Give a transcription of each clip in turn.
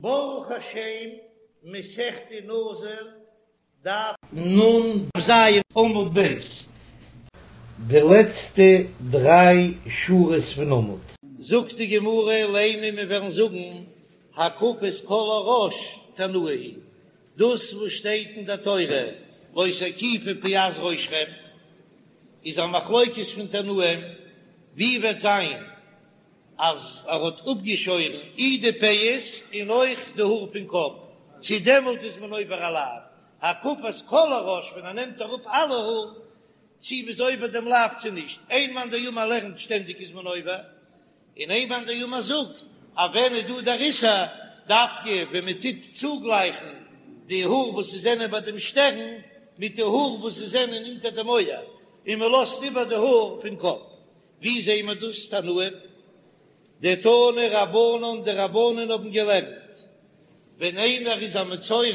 ברוך השם, מסכת נזיר, דף נ"ז עמוד ב'. די לעצטע דריי שורות פון עמוד. זאגט די גמרא, לימא מיר וועלן זאגן הקפת כל הראש תנאי היא, דאס וואס שטייט אין דער תורה לא תקיפו פאת ראשכם איז א מחלוקת פון תנאים, ווי וועט זיין אז ער האט אפגעשוירן אי די פאות און אויך די האר פון קאפ, צו דעמאלט איז מען עובר א לאו, הקפת כל הראש ווען ער נעמט אראפ אלע האר, צו מ'איז עובר דעם לאו צו נישט, איין מאן דאמר לערנט שטענדיג איז מען עובר, און איין מאן דאמר זאגט אז ווען איז דא דער איסור, דווקא ווען מען טוט צוגלייכן די האר וואס ס'זענען ביי דעם שטערן מיט די האר וואס ס'זענען אונטער דעם אויער, און מען לאזט איבער די האר פון קאפ. ווי זעהן מיר דאס תנאים? דתנו רבנן, די רבנן האבן געלערנט, ווען איינער איז א מצורע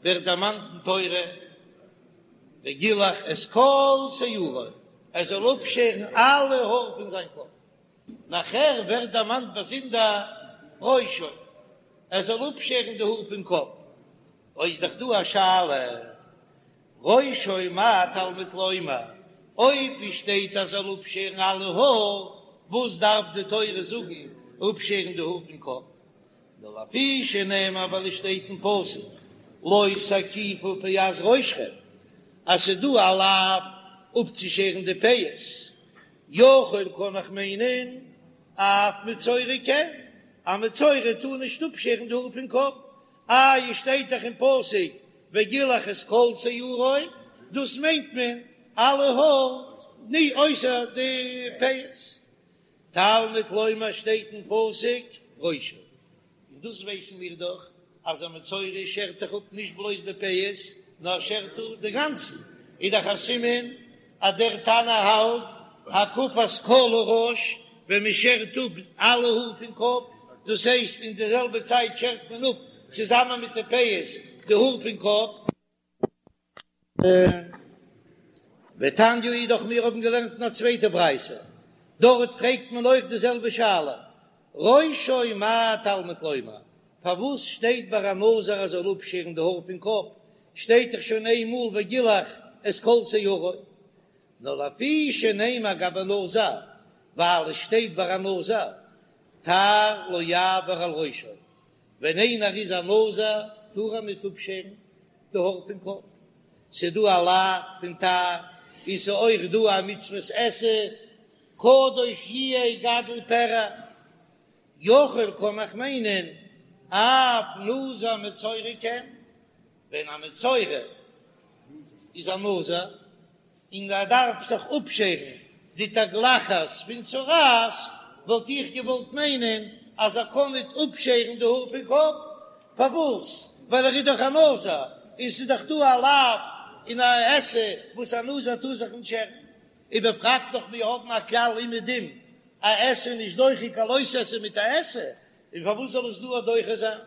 ווערט דערמאנט אין תורה וגילח את כל שערו, ער זאל אפשערן אלע האר פון זיין קאפ, נאכער ווערט דערמאנט באזונדער ראשו, ער זאל אפשערן די האר פון קאפ, אוי איז דאך דא א שאלה. ראשו מה תלמוד לומר, אויב עס שטייט אז זאל אפשערן אלע האר, וואס דארף די תורה זאגן אפשערן די האר פון קאפ? נאר לפי שנאמר ווייל עס שטייט אין פסוק לא תקיפו פאת ראשכם אז ס'איז דא א לאו אפצושערן די פאות, יכול קען איך מיינען אף מצורע כן, א מצורע טאר נישט אפשערן די האר פון קאפ, איי עס שטייט דאך אין פסוק וגילח את כל שערו, דאס מיינט מען אלע האר ני אויסער די פאות. תלמוד לומר שטייט אין פסוק ראשו, און דאס ווייסן מיר דאך אז א מצורע שערט דאך אפ נישט בלויז די פאות נאר שערט אפ די גאנצן, איז דאך א סימן אז דער תנא האלט הקפת כל הראש, ווען מען שערט אפ אלע האר פון קאפ, דאס הייסט אין די זעלבע צייט שערט מען אפ צוזאמען מיט די פאות די האר פון קאפ. ותניא אידך מיר האבן געלערנט אין א צווייטע ברייתא, דארט פרעגט מען אויך די זעלבע שאלה, ראשו מה תלמוד לומר, פארוואס שטייט ביי א נזיר אז ער זאל אפשערן די האר פון קאפ, שטייט דאך שוין איין מאל וגילח את כל שערו, נאר לפי שנאמר גבי נזיר, ווייל עס שטייט ביי א נזיר, תער לא יעבור על ראשו, ווען איינער איז א נזיר טאר ער נישט אפשערן די האר פון קאפ, ס'איז דא א לאו פון תער, און ס'איז אויך דא א מצוות עשה, קדוש יהיה גדל פרע. יכול קען איך מיינען אף נזיר מצורע כן, ווען א מצורע איז א נזיר און ער דארף זיך אפשערן די תגלחת פון צרעת, וואלט איך געוואלט מיינען אז ער קען ניט אפשערן די האר פון קאפ, פארוואס? ווייל ער איז דאך א נזיר און ס'איז דאך דא א לאו און א עשה וואס א נזיר טאר זיך נישט שערן, ובפרט נאך מיר האבן א כלל אומעדום א עשה נישט דוחה קיין לא תעשה מיט א עשה, און פארוואס זאל עס דא א דוחה זיין?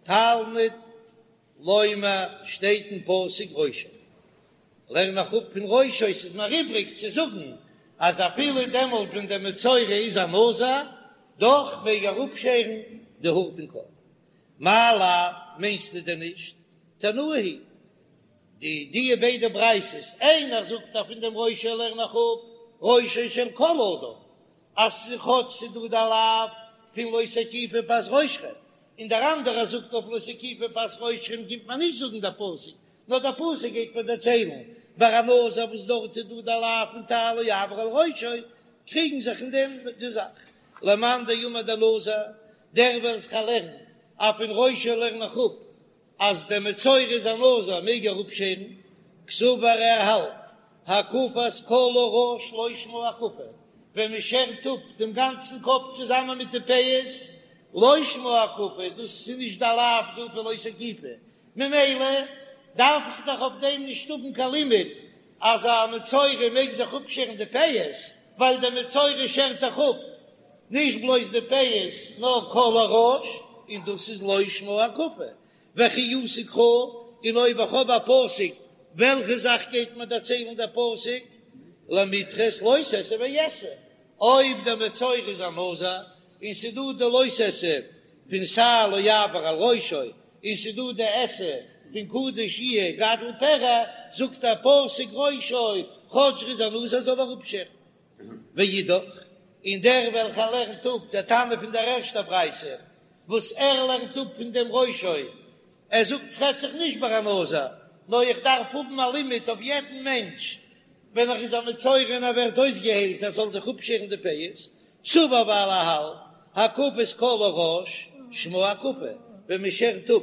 תלמוד לומר שטייט אין פסוק ראשו, לערן איך אפ פון ראשו, ס'איז מיר איבריג צו זאגן אז אפילו דעמאלט ווען דער מצורע איז א נזיר, דאך מעג ער אפשערן די האר פון קאפ. מאי לאו, מיינסטו דען נישט? תנאי היא די די ביידע ברייתות, איינער זאגט אז פון דעם ראשו לערן איך אפ ראשו של כל אדם, אז כאטש ס'איז דא די לאו פון לא תקיפו פאת ראשכם, און דער אנדערער זאגט אויף לא תקיפו פאת ראשכם קומט מען נישט זאגן דער פסוק, נאר דער פסוק גייט מיר דערציילן ביי א נזיר וואס דארט איז דא די לאו פון תער לא יעבור על ראשו, קריגן זיך אין דעם די זאך. למאן דאמר דנזיר, דער וועלכער לערנט אז פון ראשו לערן איך אפ אז דער מצורע איז א נזיר מעג ער אפשערן, קסבר ער האלט הקפת כל הראש לא שמה הקפה, ווען מען שערט אפ דעם גאנצן קאפ צוזאמען מיט די פאות, לא שמה הקפה, דאס איז נישט די לאו דא פון לא תקיפו, ממילא דארף איך דאך אויף דעם נישט האבן קיין לימוד אז א מצורע מעג זיך אפשערן די פאות, ווייל דער מצורע שערט דאך אפ נישט בלויז די פאות נאר כל הראש, און דאס איז לא שמה הקפה, וכי אתא קרא, און אויב איך האב א פסוק, וועלכע זאך גייט מיר דערציילן דער פסוק? למידחת לא תעשה ועשה, אויב דער מצורע איז א נזיר. און ס'דא די לא תעשה פון שער לא יעבור על ראשו, און ס'דא די עשה פון קדוש יהיה גדל פרע, זאגט דער פסוק ראשו, כאטש ר'איז א נזיר זאל ער אפשערן. ואידך, און דער וועלכער לערנט אפ דער תנא פון דער ערשטער ברייתא, וואס ער לערנט אפ פון דעם ראשו, ער זאגט ס'רעדט זיך נישט ביי א נזיר, נאר איך דארף האבן א לימוד אויף יעדן מענטש ווען ער איז א מצורע און ער ווערט אויסגעהיילט ער זאל זיך אפשערן די פאות, סבר ווייל ער האלט הקפת כל הראש שמה הקפה, ווען מען שערט אפ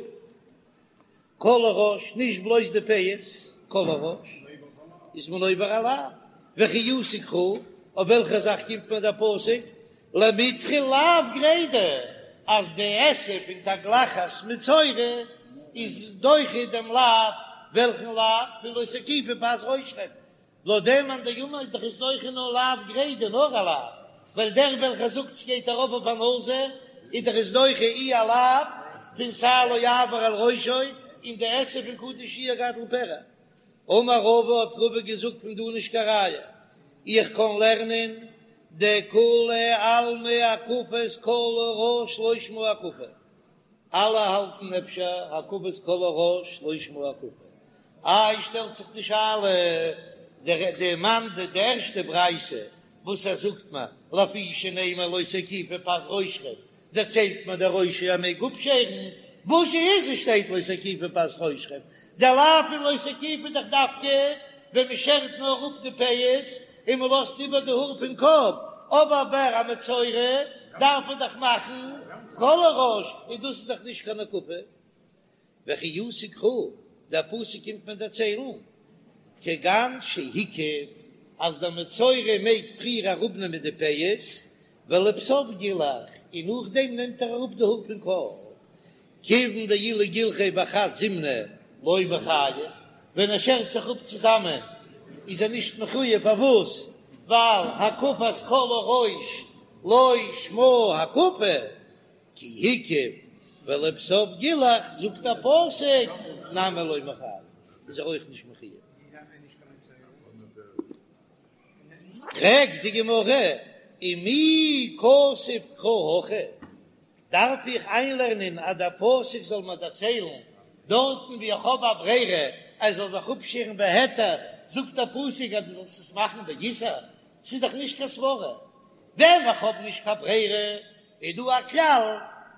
כל הראש, נישט בלויז די פאות, כל הראש, איז מען עובר א לאו, וכי אתי קרא, אויף וועלכע זאך קומט מיר דער פסוק, למידחי לאו גרידא, אז די עשה פון תגלחת מצורע איז דוחה דעם לאו, וועלכן לאו? פון לא תקיפו פאת ראשכם, לויט דעם מאן דאמר איז דאך עס דוחה נאר לאו גרידא נאר א לאו, ווייל דער וועלכער זאגט ס'גייט ארויף אויף א נזיר איז דאך עס דוחה אי א לאו פון שער לא יעבור על ראשו און די עשה פון קדוש יהיה גדל פרע. אמר רבא האט רבא געזאגט פון דא נישט קיין ראיה, איך קען לערנען דכולי עלמא הקפת כל הראש לא שמה הקפה, אלע האלטן אפשר הקפת כל הראש לא שמה הקפה. איי שטעלט זיך די שאלה, די מאן די ערשטע ברייתא וואס ער זאגט מיר לפי שנאמר לא תקיפו פאת ראשכם דערציילט מיר דער ראשו ער מעג אפשערן, וואס איז עס שטייט לא תקיפו פאת ראשכם, דער לאו פון לא תקיפו איז דאך דווקא ווען מען שערט נאר אפ די פאות און מען לאזט איבער די האר פון קאפ, אבער ביי א מצורע דארף מען דאך מאכן כל הראש, און דאס איז דאך נישט קיין הקפה. וכי אתי קרא, דער פסוק קומט מיר דערציילן, כגון שהקיף, אז דער מצורע מעג פריער אראפנעמען די פאות, ולבסוף גילח, און נאכדעם נעמט ער אראפ די האר פון קאפ, כיוון דאילו גילחיה בחד זימנא לא מיחייב, ווען ער שערט זיך אפ צוזאמען איז ער נישט מחויב, פארוואס? ווייל הקפת כל הראש לא שמה הקפה, כי הקיף ולבסוף גילח, זאגט דער פסוק נמי לא מיחייב, איז ער אויך נישט מחויב. פרעגט די גמרא, ומי כתב קרא הכי? דארף איך איינלערנען אז דער פסוק זאל מיר דערציילן דארטן ווי איך האב א ברירה ער זאל זיך אפשערן בהיתר, זאגט דער פסוק אז דו זאלסט עס מאכן באיסור? ס'איז דאך נישט קיין סברא. ווען איך האב נישט קיין ברירה איז דא א כלל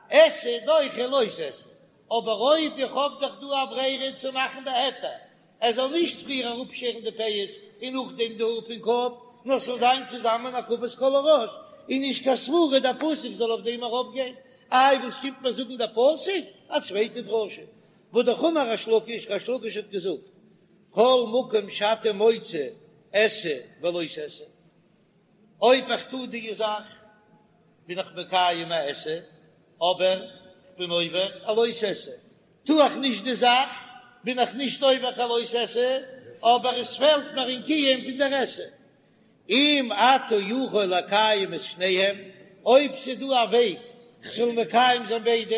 עשה דוחה לא תעשה, אבער אויב איך האב דאך דא א ברירה צו מאכן בהיתר, ער זאל נישט פריער אראפשערן די פאות און נאכדעם די האר פון קאפ, נאר ס'זאל זיין צוזאמען הקפת כל הראש, איז נישט קיין סברא דער פסוק זאל אויף דעם ארויפגיין. איי וואס קומט מיר זאגן דער פסוק? א צווייטע דרשה, והא דאך אמר ריש לקיש, ריש לקיש האט געזאגט, כל מקום שאתה מוצא עשה ולא תעשה, אויב איך טו די זאך בין איך מקיים א עשה, אבער כ'בין עובר א לא תעשה, טו איך נישט די זאך בין איך נישט עובר קיין לא תעשה, אבער עס פעלט מיר אין קיום פון דער עשה. אם אתה יכול לקיים את שניהם, אויב ס'איז דא א וועג כ'זאל מקיים זיין ביידע,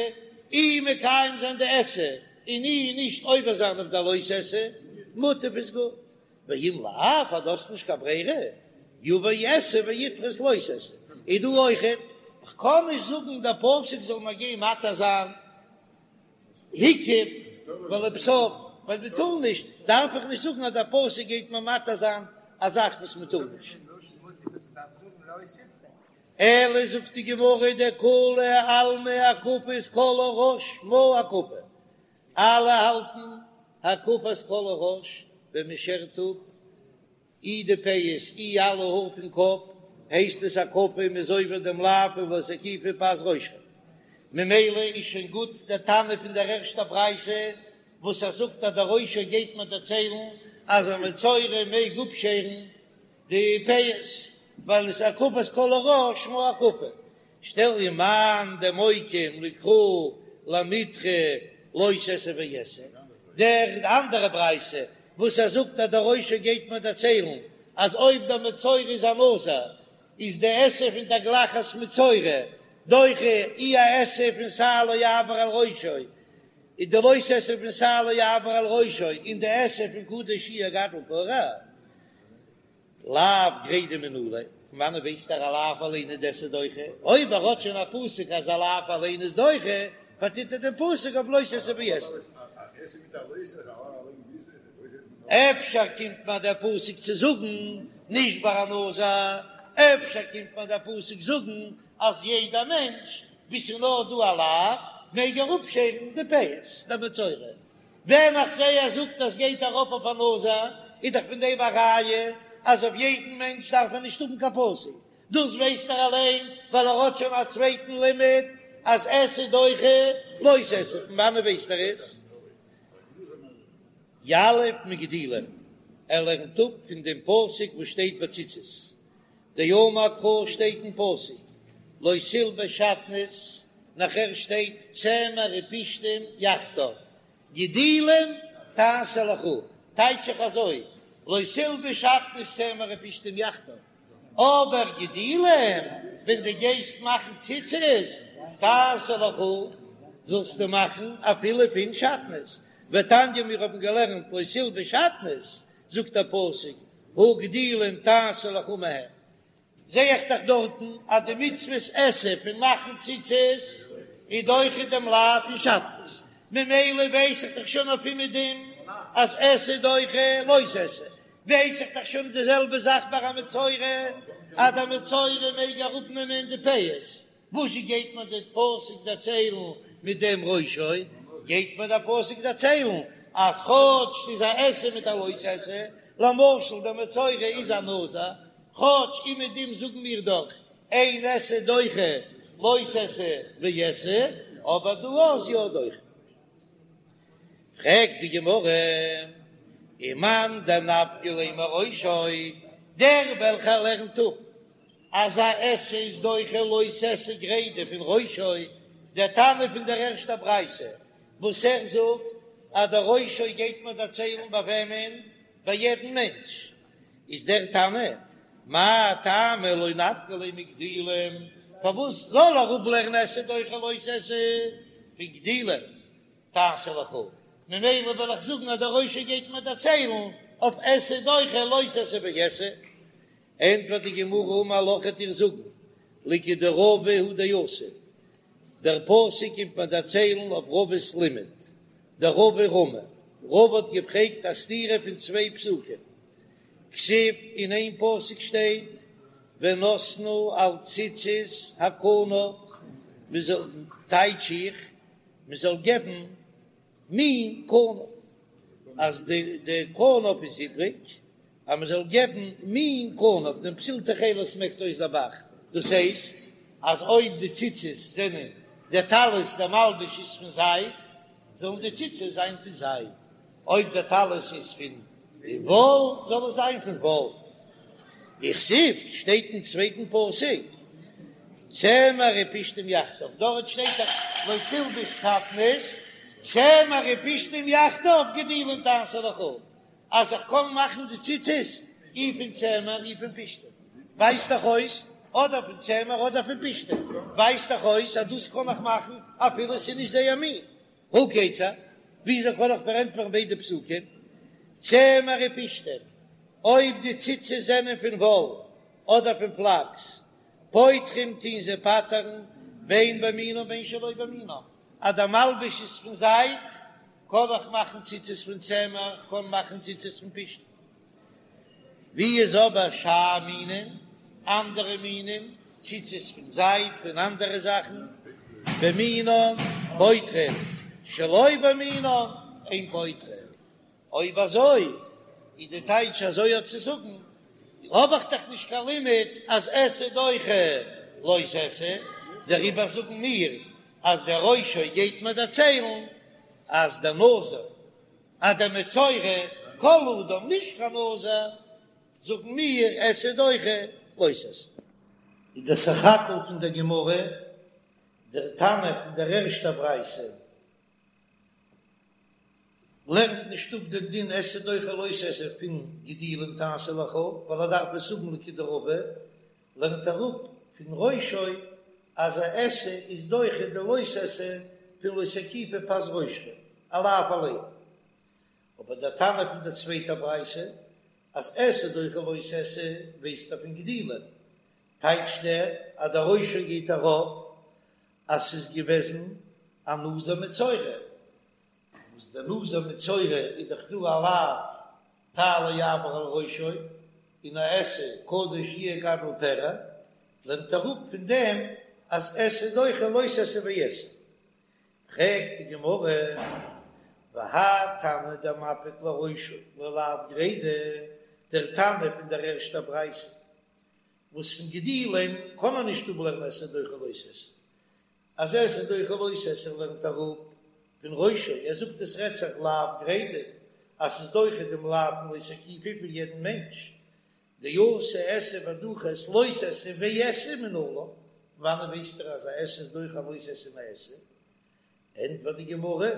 אי מקיים זיין די עשה און אי נישט עובר זיין אויף די לא תעשה, מוטב איז גוט. ואם לאו, אז דו האסט נישט קיין ברירה, יבוא עשה וידחה את לא תעשה. איז דא אויכעט, כ'קען נישט זאגן דער פסוק זאל מיר גיין מתיר זיין הקיף ולבסוף, ווייל מען טאר נישט, דארף איך נישט זאגן אז דער פסוק גייט מיר מתיר זיין א זאך וואס מען טאר נישט. אלא זאגט די גמרא דכולי עלמא הקפת כל הראש שמה הקפה, אלע האלטן הקפת כל הראש ווען מען שערט אפ אי די פאות אי אלע האר פון קאפ הייסט עס הקפה מען איז עובר דעם לאו פון לא תקיפו פאת ראשכם ממילא איז שוין גוט דער תנא פון דער ערשטער ברייתא וואס ער זאגט אז דער ראשו גייט מיר דערציילן אז א מצורע מעג אפשערן די פאות ווייל עס איז הקפת כל הראש שמה הקפה שטעל ומאן דמוקים לקרא למידחי לא תעשה ועשה, דער אנדערע ברייתא וואס ער זאגט אז דער ראשו גייט מיר דערציילן אז אויב דער מצורע איז א נזיר איז די עשה פון תגלחת מצורע דוחה אי א עשה פון שער לא יעבור על ראשו איז די לא תעשה פון שער לא יעבור על ראשו און די עשה פון קדוש יהיה גדל פרע לאו גרידא מנא ליה. פון וואנעט ווייסט ער א לאו אליין איז עשה דוחה? אויב ער האט שוין א פסוק אז א לאו אליין איז דוחה, פארטוט ער דעם פסוק אויף לא תעשה ועשה. אפשר קומט מיר דער פסוק צו זאגן נישט ביי א נזיר, אפשר קומט מיר דער פסוק זאגן אז יעדע מענטש וואו ס'איז נאר דא א לאו מעג ער אפשערן די פאות, דער מצורע. ווען איך זע ער זאגט אז גייט ארויף אויף א נזיר, איז דאך פון דעם א ראיה אז אויף יעדן מענטש דארף מען נישט האבן קיין פסוק, דאס ווייסט ער אליין ווייל ער האט שוין א צווייטן לימוד אז עשה דוחה לא תעשה, פון וואנעט ווייסט ער עס? יליף מגדילים, ער לערנט אפ פון דעם פסוק וואס שטייט ביי ציצית, דאמר קרא שטייט אין פסוק לא תלבש שעטנז, נאכער שטייט צמר ופשתים יחדיו, גדילים תעשה לך, טייטש איך אזוי, לא תלבש שעטנז צמר ופשתים יחדיו, אבער גדילים ווען דו גייסט מאכן ציצית תעשה לך זאלסטו מאכן אפילו פון שעטנז, ותניא מיר האבן געלערנט לא תלבש שעטנז, זאגט דער פסוק הא גדילים תעשה לך מהם, זע איך דאך דארטן אז די מצוות עשה פון מאכן ציצית איז דוחה דעם לאו פון שעטנז, ממילא ווייס איך דאך שוין אויף אומעדום אז עשה דוחה לא תעשה, ווייס איך דאך שוין די זעלבע זאך ביי א מצורע אז דער מצורע מעג אראפנעמען די פאות, וואזשע גייט מיר דער פסוק דערציילן מיט דעם ראשו? גייט מיר דער פסוק דערציילן אז כאטש ס'איז א עשה מיט א לא תעשה, למשל דער מצורע איז א נזיר, כאטש אומעדום זאגן מיר דאך אין עשה דוחה לא תעשה ועשה, אבער דא איז יא דוחה. פרעגט די גמרא, ומאן דנפקא ליה מראשו, דער וועלכער לערנט אפ אז א עשה איז דוחה לא תעשה גרידא פון ראשו, דער תנא פון דער ערשטער ברייתא וואס ער זאגט אז דער ראשו גייט מיר דערציילן ביי וועמען? ביי יעדן מענטש, איז דער תנא, מאי טעמא לא נפקא ליה מגדילים, פארוואס זאל ער אפלערנען עשה דוחה לא תעשה פון גדילים תעשה לך, ממילא וועל איך זאגן אז דער ראשו גייט מיר דערציילן אויף עשה דוחה לא תעשה ועשה. ענטפערט די גמרא אמר לך וועט דיר זאגן לכדרבא הוא דאתא, דער פסוק קומט מיר דערציילן אויף רבא'ס לימוד, דרבא רמי, רבא האט געפרעגט א סתירה פון צוויי פסוקים, כתיב אין איין פסוק שטייט ונתנו על ציצית הכנף, מען זאל, טייטש איך, מען זאל געבן מין כנף, אז די די כנף איז איבריג, אז מען זאל געבן מין כנף, דעם פתיל תכלת מעקט אויס דער ב"ח, דאס הייסט אז אויב די ציצית זענען דער טלית דער מלבוש איז פון זייד, זאלן די ציצית זיין פון זייד, אויב דער טלית איז פון וואל, זאל עס זיין פון וואל. וכתיב שטייט אין צווייטן פסוק צמר ופשתים יחדיו, דארט שטייט דאך לא תלבש שעטנז, צמר ופשתים יחדיו גדילים תעשה לך, אז איך קען מאכן די ציצית אי פון צמר אי פון פשתים, ווייזט דאך אויס אדער פון צמר אדער פון פשתים, ווייזט דאך אויס אז דאס קען איך מאכן אפילו עס איז נישט זייער מין. הא כיצד? וויאזוי קען איך פארענטפערן ביידע פסוקים? צמר ופשתים, אויב די ציצית זענען פון וואל אדער פון פלאקס, פוטרים טוהן זיי פטר'ן בין במינם בין שלא במינם, אז דער מלבוש איז פון זייד, קען איך מאכן ציצית פון צמר, איך קען מאכן ציצית פון פשתן. ווי איז אבער שאר מינים, אנדערע מינים, ציצית פון זייד, פון אנדערע זאכן, במינן פוטרין, שלא במינן אין פוטרין. אויב אזוי איז די טייטש אזוי האט צו זאגן, האב איך דאך נישט קיין לימוד אז עשה דוחה לא תעשה, דעריבער זאגן מיר אז דער ראשו גייט מיר דערציילן אז דער נזיר אז דער מצורע כל אדם נישט קיין נזיר, זאגן מיר עשה דוחה לא תעשה. איז דער סך הכל פון דער גמרא דער תנא פון דער ערשטער ברייתא לערנט נישט אפ דעם דין עשה דוחה לא תעשה פון גדילים תעשה לך, ווייל ער דארף עס האבן לכדרבא, לערנט ער אפ פון ראשו אז א עשה איז דוחה די לא תעשה פון לא תקיפו פאת ראשכם, א לאו אליין. אבער דער תנא פון דער צווייטער ברייתא אז עשה דוחה לא תעשה ווייסט ער פון גדילים. טייטשט ער אז דער ראשו גייט ארויף אז ס'איז געוועזן א נזיר מצורע, וואס דער נזיר מצורע איז דאך דא א לאו תער לא יעבור על ראשו, און א עשה קדוש יהיה גדל פרע, לערנט ער אפ פון דעם אז עשה דוחה לא תעשה ועשה. פרעגט די גמרא, והאי תנא דמפיק לראשו ללאו גרידא, דער תנא פון דער ערשטער ברייתא, וואס פון גדילים קען מען נישט אפלערנען עשה דוחה לא תעשה, אז עשה דוחה לא תעשה לערנט ער אפ פון ראשו, ער זאגט עס רעדט זיך לאו גרידא, אז ס'איז דוחה דעם לאו פון לא תקיפו פון יעדן מענטש, דאתי עשה ודחית לא תעשה ועשה מנלן, וואנען ווייסט ער אז א עשה איז דוחה א לא תעשה און א עשה? ענטפערט די גמרא,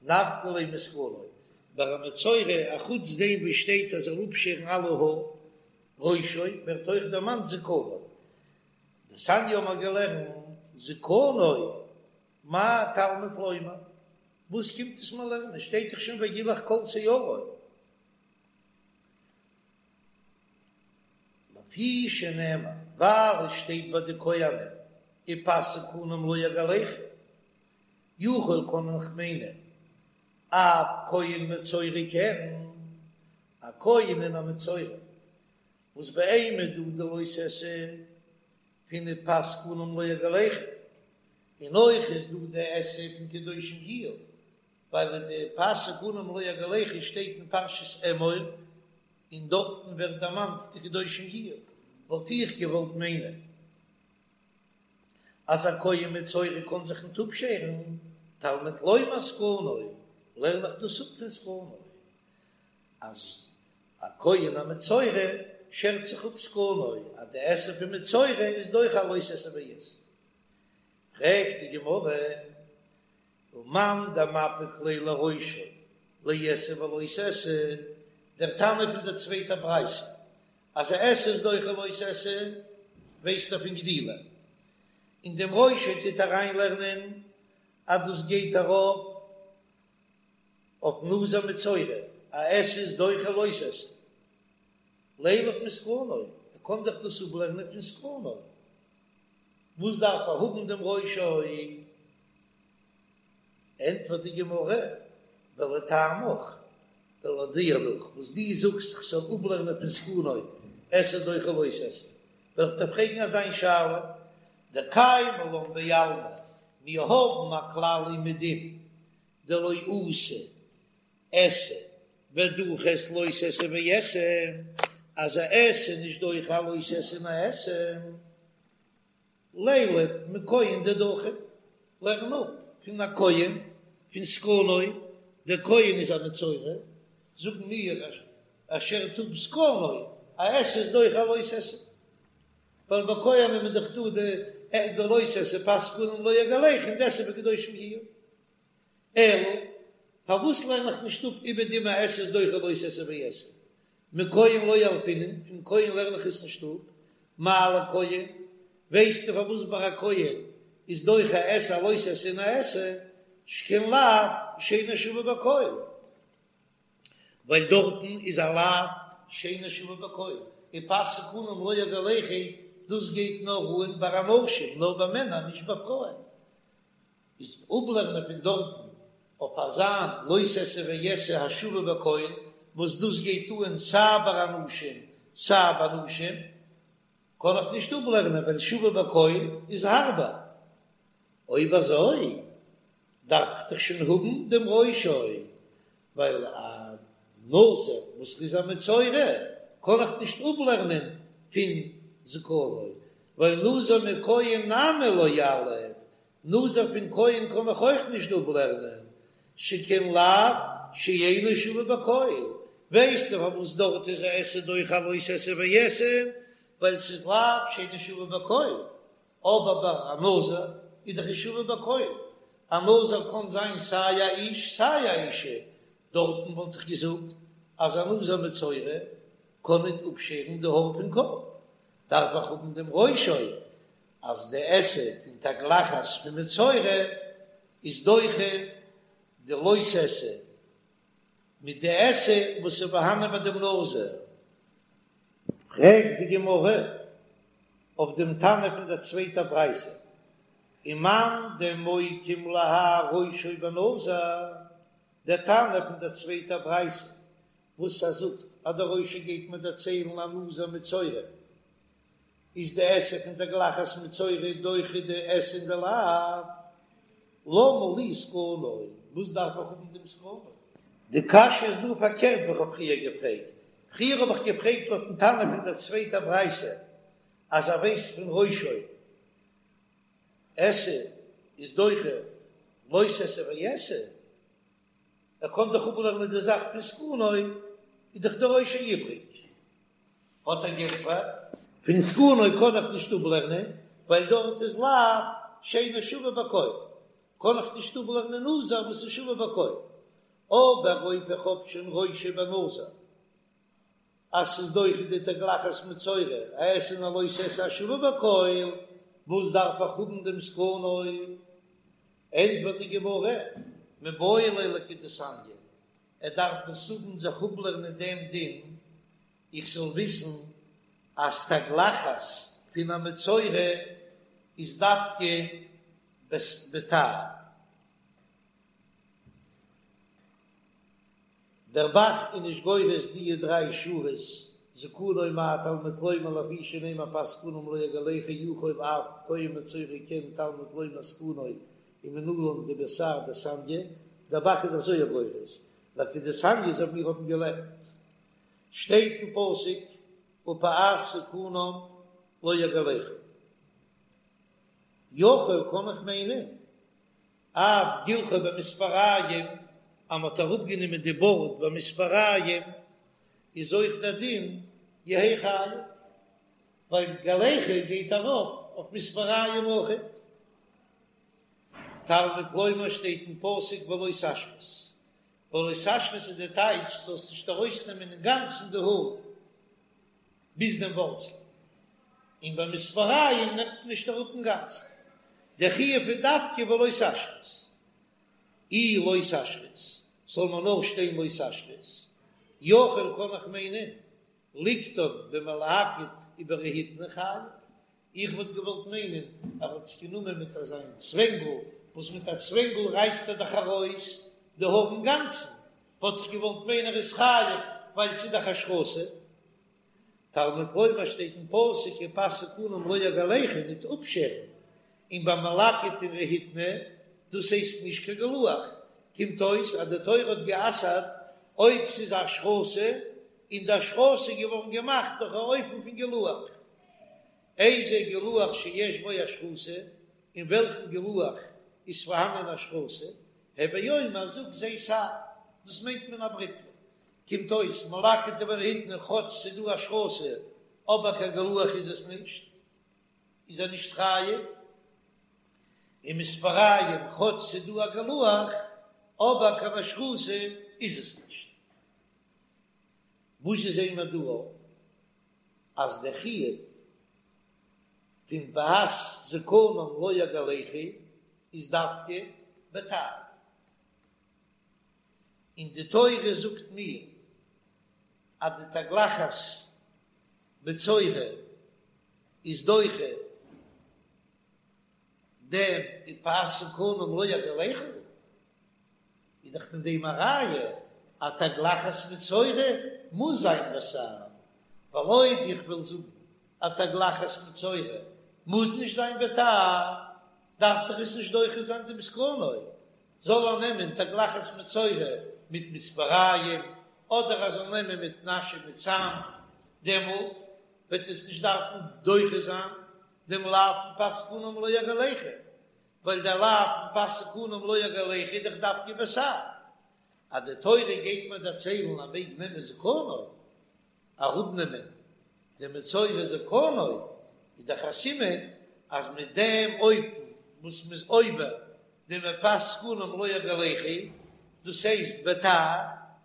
נפקא ליה מזקנו, ביי א מצורע אחוץ דעם וואס שטייט אז ער זאל אפשערן אלע האר, ראשו, ווערט אויך דערמאנט זקנו. דתניא האבן מיר געלערנט זקנו, מה תלמוד לומר? וואס קומט עס מיר לערנען? שטייט דאך שוין וגילח כל שערו. לפי שנאמר, ווייל עס שטייט ביי די כהנים ופאת זקנם לא יגלחו, יכול קען איך מיינען אף כהן מצורע כן, א כהן און א מצורע וואס ביי אים איז דא די לא תעשה פון ופאת זקנם לא יגלחו, און אויך איז דא די עשה פון קדושים יהיו, ווייל אין די ופאת זקנם לא יגלחו שטייט אין פרשת אמור, און דארטן ווערט דערמאנט די קדושים יהיו, וואלט איך געוואלט מיינען אז א כהן מצורע קען זיך ניט אפשערן, תלמוד לומר זקנו, לערן איך דאס אפ פון זקנו, אז א כהן א מצורע שערט זיך אפ זקנו, אז די עשה פון מצורע איז דוחה א לא תעשה ועשה. פרעגט די גמרא, ומאן דמפיק ליה לראשו לעשה ולא תעשה, דער תנא פון דער צווייטער ברייתא אז א עשה איז דוחה לא תעשה ווייסט ער פון גדילים, און דעם ראשו טוט אריינלערנען אז דאס גייט ארויף אויף נזיר מצורע, א עשה איז דוחה לא תעשה, לילף מזקנו, ער קען דאך דאס אפלערנען פון זקנו, וואס דארף ער האבן דעם ראשו? ענטפערט די גמרא, ולטעמיך, ולויט דיר נאך וואס דו זאגסט איך זאל אפלערנען פון זקנו עשה דוחה לא תעשה, וועל איך דיר פרעגן אזא שאלה, דקיימא לן בעלמא, מיר האבן א כלל אומעדום דלא אתי עשה ודחית לא תעשה ועשה, אז א עשה איז נישט דוחה א לא תעשה און א עשה. לילף מכהן דדחי, לערן אפ פון א כהן פון זקנו, דער כהן איז א מצורע, זאגן מיר ער שערט אפ זקנו, א עשה איז דוחה א לא תעשה, ווייל ביי כהנים איז דאך דא די לא תעשה ופאת זקנם לא יגלחו און די עשה וקדושים יהיו. אלא פארוואס לערן איך נישט אפ אומעדום א עשה איז דוחה לא תעשה ועשה? מכהן לא ילפינן, פון כהן לערן איך עס נישט אפ, מה לכהן, ווייסטו פארוואס ביי א כהן איז דוחה עשה א לא תעשה און א עשה, שכן לאו שאינו שווה בכל, ווייל דארטן איז א לאו שאינו שווה בכל, ופאת זקנם לא יגלחו, דאס גייט נאר אן ביי אנשים, נאר ביי מענער, נישט ביי פרויען. איז אפלערנען פון דארטן אויף אזא לא תעשה ועשה השווה בכל, וואס דאס גייט אן סיי ביי אנשים סיי ביי נשים, קען איך נישט אפלערנען ווייל שווה בכל איז הארבער. אויב אזוי דארף איך דאך שוין האבן דעם ראשו, ווייל א נזיר וואס איז א מצורע קען איך נישט אפלערנען פון זקנו, ווייל נזיר מכהן נמי לא יליף, נזיר פון כהן קען איך אויך נישט אפלערנען, שכן לאו שאינו שווה בכל, ווייסטו פארוואס דארט איז א עשה דוחה א לא תעשה ועשה, ווייל ס'איז לאו שאינו שווה בכל, אבער ביי א נזיר איז דאך שווה בכל, א נזיר קען זיין סיי א איש סיי א אישה, דארטן וואלט איך געזאגט אז א נזיר מצורע קען ניט אפשערן די האר פון קאפ, דארף איך האבן דעם ראשו אז די עשה פון תגלחת פון מצורע איז דוחה די לא תעשה מיט די עשה וואס איז פארהאנען ביי דעם נזיר. פרעגט די גמרא. אויף דעם תנא פון דער צווייטער ברייתא, ומאן דמוקים להאי ראשו בנזיר, דער תנא פון דער צווייטער ברייתא וואס ער זאגט אז דער ראשו גייט מיר דערציילן א נזיר מצורע, איז די עשה פון תגלחת מצורע דוחה די עשה און די לאו, למה לי זקנו, וואס דארף איך האבן דעם זקנו? די קשיא איז דא פארקערט ווי איך האב פריער געפרעגט, פריער האב איך געפרעגט לויטן תנא פון דער צווייטער ברייתא אז ער ווייסט פון ראשו עשה איז דוחה לא תעשה ועשה, ער קען דאך אפלערנען די זאך פון זקנו, איז דאך דער ראשו איבריג. האט ער געענטפערט, פון זקנו קען איך נישט אפלערנען, ווייל דארט איז לאו שאינו שווה בכל, קען איך נישט אפלערנען נזיר וואס איז שווה בכל, אבער אויב איך האב שוין ראשו בנזיר אז ס'איז דוחה די תגלחת מצורע, א עשה און א לא תעשה השווה בכל, וואס דארף איך האבן דעם זקנו? ענטפערט די גמרא, מיבעי ליה לכדתניא, ער דארף דאס האבן זיך אפלערנען דעם דין, איך זאל וויסן אז תגלחת פון א מצורע איז דווקא בתער. דער ב"ח איז נישט גורס דיע דריי שורות, זקנו מה תלמוד לומר לפי שנאמר פאת זקנם לא יגלחו יכול אף כהן מצורע כן תלמוד לומר זקנו ומנלן דבתער דתניא, דער ב"ח איז אזוי גורס, לכדתניא אזוי ווי מיר האבן געלערנט, שטייט אין פסוק ופאת זקנם לא יגלחו. יכול קען איך מיינען אף גילחו במספריים אז מ'האט אראפגענומען די בארד במספריים איז אויך דער דין יהא חייב, ווייל גלחה גייט ארויף אויף מספריים אויכעט. תלמוד לומר שטייט אין פסוק ולא תשחית, ולא תשחית איז די טייטש זאלסט נישט ארויסנעמען אינגאנצן די האר ביז דעם ווארצל, און ביי מספריים נעמט מען נישט אראפ אינגאנצן, דער חיוב איז דווקא ולא תשחית, אי לא תשחית זאל מען נאר שטיין לא תשחית, יכול קען איך מיינען ליקטן במלקט וברהיטני חייב, איך וואלט געוואלט מיינען אז ער האט עס גענומען מיט אזא צווענגל, וואס מיט א צווענגל רייסט ער דאך ארויס די האר אינגאנצן, וואלט איך געוואלט מיינען ער איז חייב ווייל ס'איז דאך השחתה. תלמוד לומר שטייט אין פסוק ופאת זקנם לא יגלחו ניט אפשערן, און ביי מלקט און רהיטני דאס הייסט נישט קיין גילוח, קומט אויס אז די תורה האט גע'אסר'ט אויב ס'איז השחתה, און די השחתה איז געווארן געמאכט דורך א אופן פון גילוח. איזה גילוח שיש בו השחתה, אין וועלכן גילוח איז פארהאנען השחתה, הוי אומר זאג זה תער, דאס מיינט מען א בריטווע. קומט אויס מלקט וברהיטני כאטש ס'איז דא השחתה אבער קיין גילוח איז עס נישט, איז ער נישט חייב, און מספריים כאטש ס'איז דא א גילוח אבער קיין השחתה איז עס נישט. וואס זעען מיר דא אז דער חיוב פון פאת זקנם לא יגלחו איז דווקא בתער, און די תורה זאגט מיר אז די תגלחת מצורע איז דוחה דעם ופאת זקנם לא יגלחו, איז דאך פון דעם א ראיה אז תגלחת מצורע מוז זיין בתער, ווייל אויב איך וויל זאגן אז תגלחת מצורע מוז נישט זיין בתער, דארף דאך עס נישט דוחה זיין דעם זקנו, זאל ער נעמען תגלחת מצורע מיט מספריים, אדער ער זאל נעמען מיט נשא מיט סם, דעמאלט וועט עס נישט דארפן דוחה זיין דעם לאו פון פאת זקנם לא יגלחו, ווייל דער לאו פון פאת זקנם לא יגלחו איז דאך דווקא בתער. אז די תורה גייט מיר דערציילן אז מעג נעמען זקנו, אראפנעמען די מצורע זקנו, איז דאך א סימן אז מיט דעם אופן וואס מ'איז עובר דעם ופאת זקנם לא יגלחו, דאס הייסט בתער,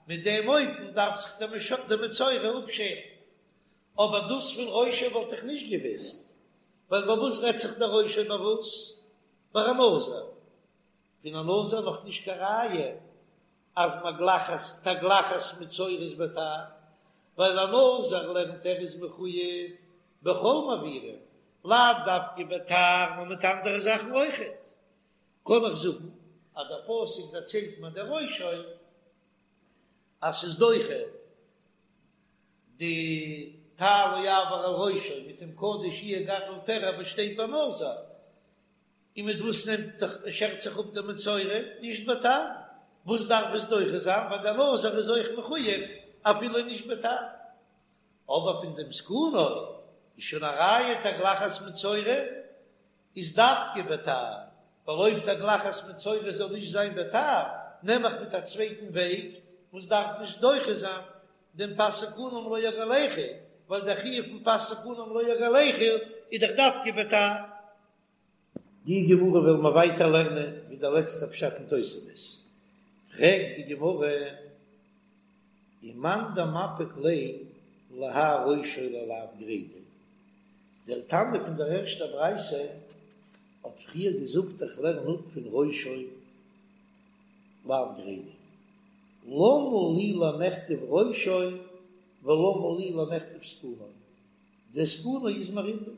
מיט דעם אופן דארף זיך די מצורע אפשערן. אבער דאס פון ראשו וואלט איך נישט געוויסט, ווייל ביי וואס רעדט זיך דער ראשו ביי וואס? ביי א נזיר. פון א נזיר נאך נישט קיין ראיה אז מגלחת תגלחת מצורע איז בתער, ווייל א נזיר לערנט ער איז מחוייב בכל מעבירים. לאו דווקא בתער נאר מיט אנדערע זאכן אויכעט, קען איך זאגן אז דער פסוק דערציילט מיר דער ראשו אז ס'איז דוחה די תער לא יעבור על ראשו מיט דעם קדוש יהיה גדל פרע וואס שטייט ביי נזיר, און מיט וואס נעמט זיך שערט זיך אפ דער מצורע? נישט בתער, וואס דארף עס דוחה זיין? ווייל דער נזיר איז אויך מחויב אפילו נישט בתער. אבער פון דעם זקנו איז שוין א ראיה תגלחת מצורע איז דווקא בתער, ווייל אויב תגלחת מצורע זאל נישט זיין בתער, נעם איך מיט א צווייטן וועג וואס דארף נישט דוחה זיין דעם פאת זקנם לא יגלחו, ווייל דער חיוב פון פאת זקנם לא יגלחו איז דאך דווקא בתער. די גמרא וועלן מיר ווייטער לערנען ווי דער לעצטער פשט אין תוספות, פרעגט די גמרא, ומאן דמפיק ליה להאי ראשו ללאו גרידא, דער תנא פון דער ערשטער ברייתא האט פריער געזאגט איך לערן אפ פון ראשו לאו גרידא, למה לי למכתב ראשו ולמה לי למכתב זקנו, דער זקנו איז מיר איבריג.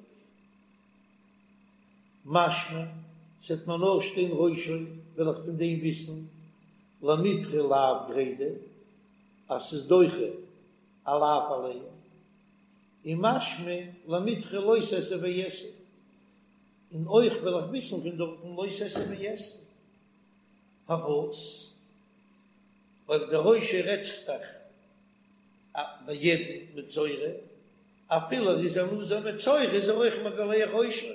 משמע, ס'עט מיר נאר שטיין ראשו, וועל איך פון דעם וויסן למידחי לאו גרידא אז ס'איז דוחה א לאו אליין, און משמע למידחי לא תעשה ועשה, און אויך וועל איך וויסן פון דארטן לא תעשה ועשה. פארוואס? ווייל דער ראשו רעדט זיך דאך ביי יעדן מצורע, אפילו ער איז א נזיר מצורע איז ער אויך מגלח ראשו,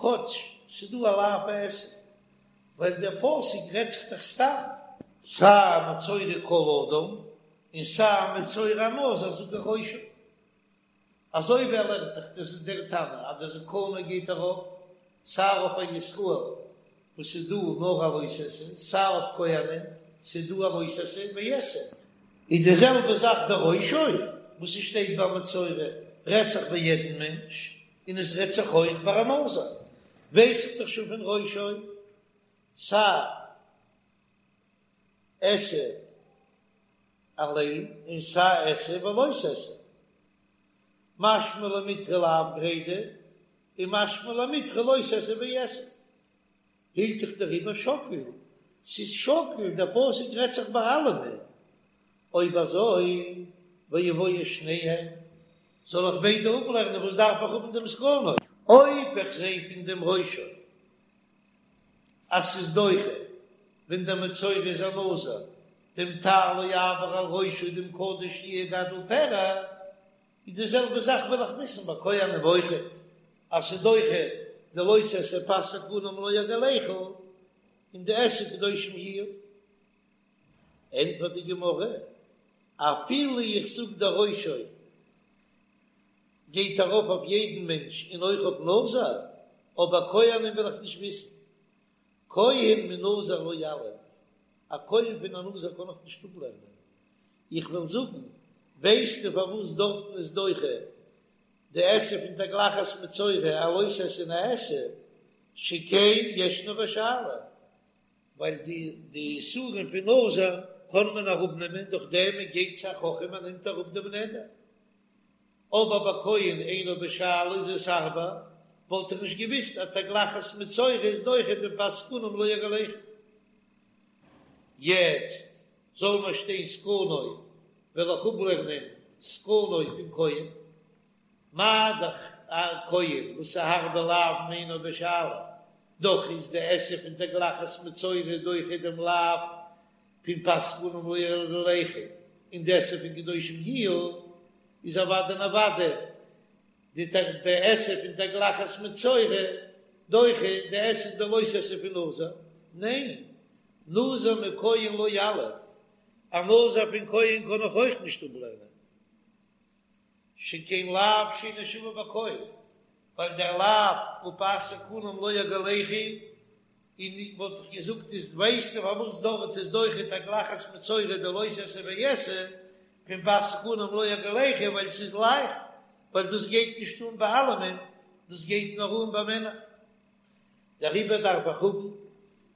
כאטש ס'דא א לאו עשה, ווייל דער פסוק רעדט זיך דאך סתם. סיי מצורע כל אדם און סיי מצורע נזיר זאג איך ראשו. אזוי ווי ער לערנט דאך, דאס איז דער תנא אז דער זקנו גייט ארויף סיי אויף א ישראל וואס איז דא נאר א לא תעשה, סיי אויף כהנים ס'איז דא א לא תעשה ועשה. און די זעלבע זאך דער ראשו וואס עס שטייט ביי מצורע רעדט זיך ביי יעדן מענטש, און עס רעדט זיך אויך ביי א נזיר, ווייס איך דאך שוין פון ראשו סיי עשה אליין און סיי עשה ולא תעשה, משמע למידחי לאו גרידא און משמע למידחי לא תעשה ועשה. הילכך דעריבער שקיל, ס'איז שקיל, דער פסוק רעדט זיך ביי אלעמען, אויב אזוי ויבואו שניהם, זאל איך ביידע אפלערנען, וואס דארף איך האבן דעם זקנו? אויב איך זע פון דעם ראשו אז ס'איז דוחה ווען דער מצורע איז א נזיר, דעם תער לא יעבור על ראשו דעם קדוש יהיה גדל פרע, איז די זעלבע זאך וויל איך וויסן ביי כהנים אויכעט אז ס'איז דוחה די לא תעשה פאת זקנם לא יגלחו און די עשה קדושים יהיו. ענטפערט די גמרא, אפילו איך זאג דער ראשו גייט ארויף אויף יעדן מענטש און אויך אויף נזיר, אבער כהנים וויל איך נישט וויסן, כהן מנזיר לא יליף, א כהן פון א נזיר קען איך נישט אפלערנען, איך וויל זאגן, ווייסטו פארוואס דארטן איז דוחה די עשה פון תגלחת מצורע א לא תעשה און א עשה, שכן ישנו בשאלה, ווייל די די איסורים פון נזיר קען מען אראפנעמען דורך דעם מען גייט צו א חכם און נעמט אראפ דעם נדר, אבער ביי כהן אינו בשאלה איז עס הארבער, וואלט איך נישט געוויסט אז תגלחת מצורע איז דוחה דעם פאת זקנם לא יגלחו. יעצט זאל מיר שטיין זקנו, וועל איך אפלערנען זקנו פון כהן, מה דאך א כהן וואס איז הארבער לאוין אינו בשאלה, דאך איז די עשה פון תגלחת מצורע דוחה דעם לאו פון פאת זקנם לא יגלחו, און די עשה פון קדושים יהיו איז אוודאי און אוודאי די די עשה פון תגלחת מצורע דוחה די עשה די לא תעשה פון נזיר, ניין, נזיר מכהן לא יליף, א נזיר פון כהן קען איך אויך נישט אפלערנען, שכן לאו שאינו שווה בכל, ווייל דער לאו ופאת זקנם לא יגלחו, און וואלט איך געזאגט איז ווייסטו פארוואס דארט איז דוחה תגלחת מצורע די לא תעשה ועשה פון פאת זקנם לא יגלחו ווייל ס'איז לייכט, ווייל דאס גייט נישט אן ביי אלעמען, דאס גייט נאר אן ביי מענער. דעריבער דארף איך האבן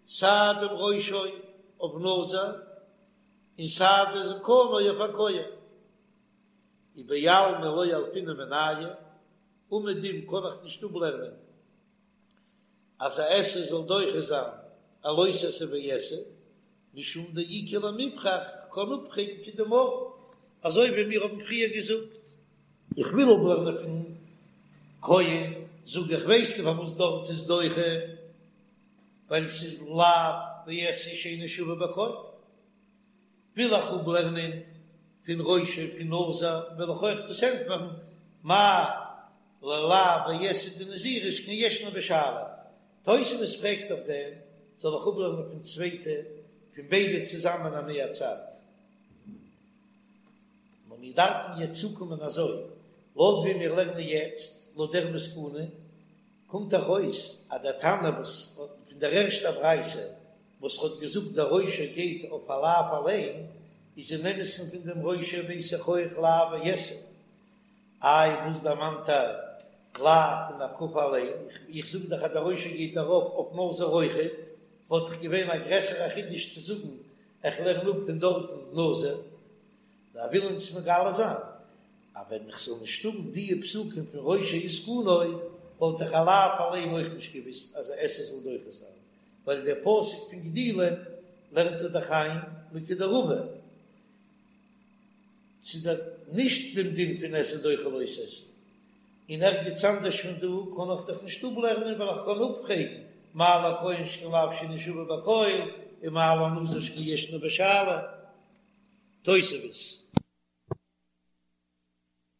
סיי דעם ראשו אויף נזיר און סיי די זקנו אויף א כהן. ובעלמא לא ילפינן מינייהו. אומעדום קען איך נישט אפלערנען אז א עשה זאל דוחה זיין א לא תעשה ועשה, משום דאיכא למיפרך, כ'קען אפפרעגן כדאמרן, אזוי ווי מיר האבן פריער געזאגט. איך וויל אפלערנען פון כהן, זאג איך ווייסטו פארוואס דארט איז דוחה? ווייל ס'איז לאו ועשה שאינו שווה בכל. וויל איך אפלערנען פון ראשו פון נזיר, וועל איך אויך דאס ענטפערן, מה ללאו ועשה דנזירות שכן ישנו בשאלה. תוספות פרעגט אויף דעם, זאל איך אפלערנען פון צווייטע, פון ביידע צוזאמען א מהצד? נאר מיר דארפן יעצט צוקומען אזוי, לויט ווי מיר לערנען יעצט, לויט דער מסקנא, קומט דאך אויס אז דער תנא וואס האט פון דער ערשטער ברייתא וואס האט געזאגט דער ראשו גייט אויף א לאו אליין, איז אין אמת'ן פון דעם ראשו ווייס איך אויך לאו ועשה. איי וואס דערמאנט ער לאו פון הקפה אליין? איך זאג דאך אז דער ראשו גייט ארויף אויף נזיר אויכעט, וואלט דאך געווען א גרעסערע חידוש צו זאגן איך לערן אפ פון דארטן נזיר. נאר וויל אונז מגלה זיין אז ווען איך זאל נישט האבן דיע פסוקים פון ראשו וזקנו וואלט איך א לאו אליין אויך נישט געוויסט אז א עשה זאל דוחה זיין, ווייל דער פסוק פון גדילים לערנט ער דאך איין לכדרבא ס'איז דאך נישט דעם דין פון עשה דוחה לא תעשה, און ערגעץ אנדערש פון דא קען איך דאך נישט אפלערנען ווייל איך קען אפפרעגן מה לכהן שכן לאו שאינו שווה בכל און מה לנזיר שכן ישנו בשאלה. תוספות.